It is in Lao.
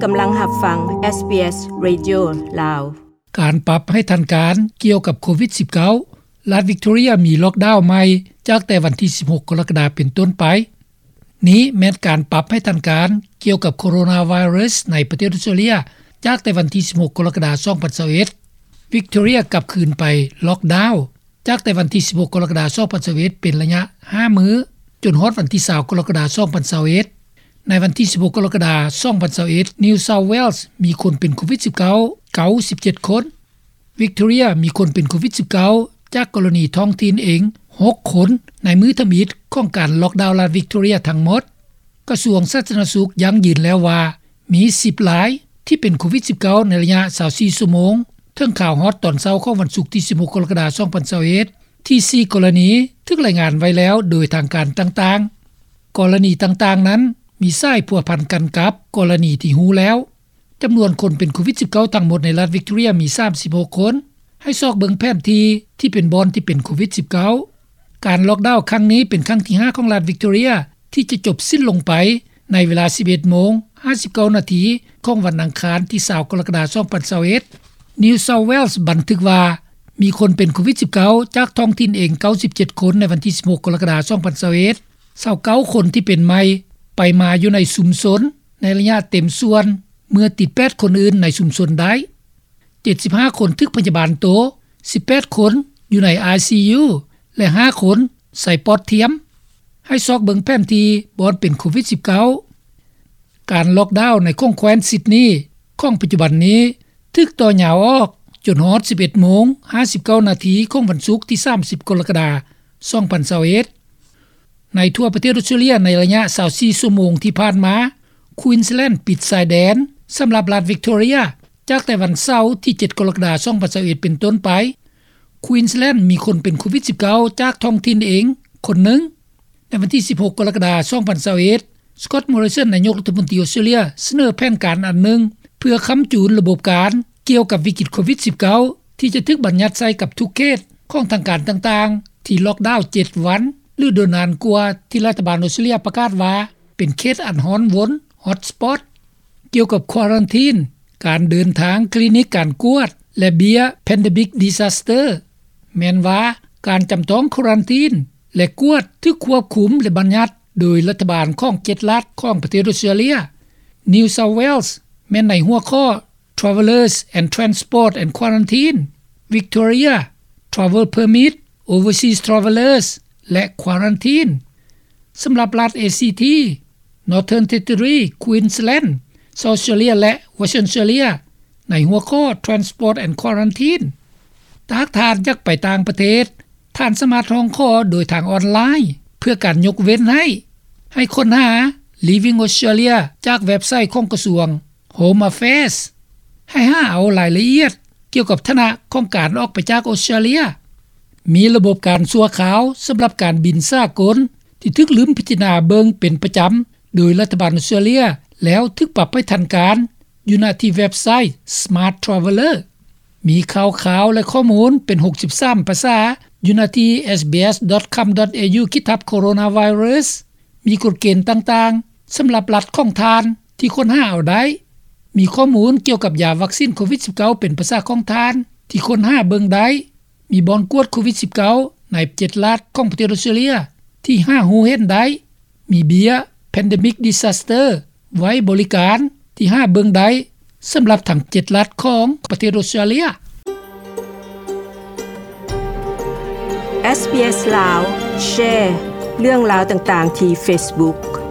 ກຳລັງຮັບຟັງ ເອສບີເອສ ເຣດິໂອ ລາວ. ການປັບໃຫ້ທັນການກ່ຽວກັບໂຄວິດສິບເກົ້າ, ລັດວິກໂຕເຣຍມີລ໊ອກດາວໃໝ່ຈາກແຕ່ວັນທີສິບຫົກກໍລະກະດາເປັນຕົ້ນໄປ. ນີ້ແມ່ນການປັບໃຫ້ທັນການກ່ຽວກັບໂຄໂຣນາໄວຣັສໃນປະເທດອອສເຕຣເລຍ ຈາກແຕ່ວັນທີສິບຫົກກໍລະກະດາສອງພັນຊາວເອັດ. ວິກໂຕເຣຍກັບຄືນໄປລ໊ອກດາວ ຈາກແຕ່ວັນທີສິບຫົກກໍລະກະດາສອງພັນຊາວເອັດ ເປັນໄລຍະຫ້າມື້ ຈົນຮອດວັນທີຊາວກໍລະກະດາສອງພັນຊາວເອັດ. ໃນວັນທີສິບຫົກກໍລະກະດາສອງພັນຊາວເອັດ ນິວເຊົາເວລສ໌ມີຄົນເປັນໂຄວິດສິບເກົ້າ ເກົ້າສິບເຈັດຄົນ. ວິກໂຕເຣຍມີຄົນເປັນໂຄວິດສິບເກົ້າ ຈາກກໍລະນີທ້ອງຖິ່ນເອງຫົກຄົນ ໃນມື້ທຳອິດຂອງການລ໊ອກດາວລັດວິກໂຕເຣຍທັງໝົດ. ກະຊວງສາທາລະນະສຸກຢັ້ງຢືນແລ້ວວ່າ ມີສິບລາຍທີ່ເປັນໂຄວິດສິບເກົ້າ ໃນໄລຍະຊາວສີ່ຊົ່ວໂມງ ເຖິງຂ່າວຮອດຕອນເຊົ້າຂອງວັນສຸກທີສິບຫົກກໍລະກະດາສອງພັນຊາວເອັດ ທີ່ສີ່ກໍລະນີຖືກລາຍງານໄວ້ແລ້ວໂດຍທາງການຕ່າງໆ. ກໍລະນີຕ່າງໆນັ້ນມີສາຍພົວພັນກັນກັບກໍລະນີທີ່ຮູ້ແລ້ວ. ຈຳນວນຄົນເປັນໂຄວິດສິບເກົ້າທັງໝົດໃນລັດວິກໂຕເຣຍມີສາມສິບຫົກຄົນ. ໃຫ້ຊອກເບິ່ງແຜນທີ່ທີ່ເປັນບ່ອນທີ່ເປັນໂຄວິດສິບເກົ້າ. ການລ໊ອກດາວຄັ້ງນີ້ເປັນຄັ້ງທີຫ້າຂອງລັດວິກໂຕເຣຍ ທີ່ຈະຈົບສິ້ນລົງໄປໃນເວລາສິບເອັດໂມງຫ້າສິບເກົ້ານາທີຂອງວັນອັງຄານທີຊາວກໍລະກະດາສອງພັນຊາວເອັດ. ນິວເຊົາເວລສ໌ບັນທຶກວ່າ ມີຄົນເປັນໂຄວິດສິບເກົ້າ ຈາກທ້ອງຖິ່ນເອງເກົ້າສິບເຈັດຄົນໃນວັນທີສິບຫົກກໍລະກະດາສອງພັນຊາວເອັດ. ຊາວເກົ້າຄົນທີ່ເປັນໃໝ່ໄປມາຢູ່ໃນຊຸມຊົນໃນໄລຍະເຕັມສ່ວນ ເມື່ອຕິດແປດຄົນອື່ນໃນຊຸມຊົນໄດ້. ເຈັດສິບຫ້າຄົນຖືກພະຍາບານໂຕ, ສິບແປດຄົນຢູ່ໃນ ໄອຊີຢູ ແລະ ຫ້າຄົນໃສ່ປອດທຽມ. ໃຫ້ຊອກເບິ່ງແຜນທີ່ບ່ອນເປັນໂຄວິດສິບເກົ້າ. ການລ໊ອກດາວໃນຂົງແຄວ້ນຊິດນີຂອງປັດຈຸບັນນີ້ ຖືກຕໍ່ຍາວອອກຈົນຮອດສິບເອັດໂມງຫ້າສິບເກົ້ານາທີຂອງວັນສຸກທີສາມສິບກໍລະກະດາສອງພັນຊາວເອັດ. ໃນທົ່ວປະເທດອອສເຕຣເລຍໃນໄລຍະຊາວສີ່ຊົ່ວໂມງທີ່ຜ່ານມາ, ຄວີນສແລນປິດຊາຍແດນສຳລັບລັດວິກໂຕເຣຍ ຈາກແຕ່ວັນເສົາທີເຈັດກໍລະກະດາສອງພັນຊາວເອັດເປັນຕົ້ນໄປ. ຄວີນສແລນມີຄົນເປັນໂຄວິດສິບເກົ້າ ຈາກທ້ອງຖິ່ນເອງຄົນໜຶ່ງ. ໃນວັນທີສິບຫົກກໍລະກະດາສອງພັນຊາວເອັດ, ສະກອດ ມໍຣິສັນ ນາຍົກລັດຖະມົນຕີອອສເຕຣເລຍ ສະເໜີແຜນການອັນໜຶ່ງ ເພື່ອຄ້ຳຈູນລະບົບການກ່ຽວກັບວິກິດໂຄວິດສິບເກົ້າ ທີ່ຈະຖືກບັນຍັດໃສ່ກັບທຸກເຂດຂອງທາງການຕ່າງໆ ທີ່ລ໊ອກດາວເຈັດວັນ ຫຼື ໂດຍນານກວ່າທີ່ລັດຖະບານອອສເຕຣເລຍປະກາດວ່າ ເປັນເຂດອັນຮ້ອນວົນ ຮອດສະປອດ. ກ່ຽວກັບຄວາຣັນທີນ, ການເດີນທາງ, ຄລີນິກການກວດ ແລະ ເບ້ຍ Pandemic Disaster ແມ່ນວ່າການຈຳຕ້ອງຄວາຣັນທີນ ແລະ ກວດຖືກຄວບຄຸມ ແລະ ບັນຍັດໂດຍລັດຖະບານຂອງເຈັດລັດຂອງປະເທດອອສເຕຣເລຍ. New South Wales ແມ່ນໃນຫົວຂໍ້ Travellers and Transport and Quarantine, Victoria, Travel Permit, Overseas Travellers ແລະ Quarantine. ສຳລັບລັດ ເອຊີທີ, Northern Territory, Queensland, South Australia ແລະ Western Australia ໃນຫົວຂໍ້ Transport and Quarantine. ຖ້າຫາກທ່ານຢາກໄປຕ່າງປະເທດ, ທ່ານສາມາດຮ້ອງຂໍໂດຍທາງອອນລາຍ ເພື່ອການຍົກເວັ້ນໃຫ້. ໃຫ້ຄົ້ນຫາ Leaving Australia ຈາກເວັບໄຊຂອງກະຊວງ Home Affairs. ໃຫ້ຫາເອົາລາຍລະອຽດກ່ຽວກັບຖານະຂອງການອອກໄປຈາກອອສເຕຣເລຍ. ມີລະບົບການຊົ່ວຄາວສຳລັບການບິນສາກົນ ທີ່ຖືກລືມພິຈາລະນາເບິ່ງເປັນປະຈຳໂດຍລັດຖະບານອອສເຕຣເລຍ ແລ້ວຖືກປັບໃຫ້ທັນການຢູ່ນະທີ່ເວັບໄຊ Smart Traveller. ມີຂ່າວຄາວ ແລະ ຂໍ້ມູນເປັນຫົກສິບສາມພາສາຢູ່ນະທີ່ SBS.com.au ຂີດທັບ Coronavirus. ມີກົດເກນຕ່າງໆສຳລັບລັດຂອງທ່ານທີ່ຄົ້ນຫາເອົາໄດ້. ມີຂໍ້ມູນກ່ຽວກັບຢາວັກຊີນໂຄວິດສິບເກົ້າເປັນພາສາຂອງທ່ານທີ່ຄົ້ນຫາເບິ່ງໄດ້. ມີບ່ອນກວດໂຄວິດສິບເກົ້າໃນເຈັດລັດຂອງປະເທດອອສເຕຣເລຍທີ່ຫາຮູ້ເຫັນໄດ້. ມີເບ້ຍ Pandemic Disaster ໄວ້ບໍລິການທີ່ຫາເບິ່ງໄດ້ສຳລັບທັງເຈັດລັດຂອງປະເທດອອສເຕຣເລຍ. ເອສບີເອສ ລາວ ແຊເລື່ອງລາວຕ່າງໆທີ່ເຟສບຸກ.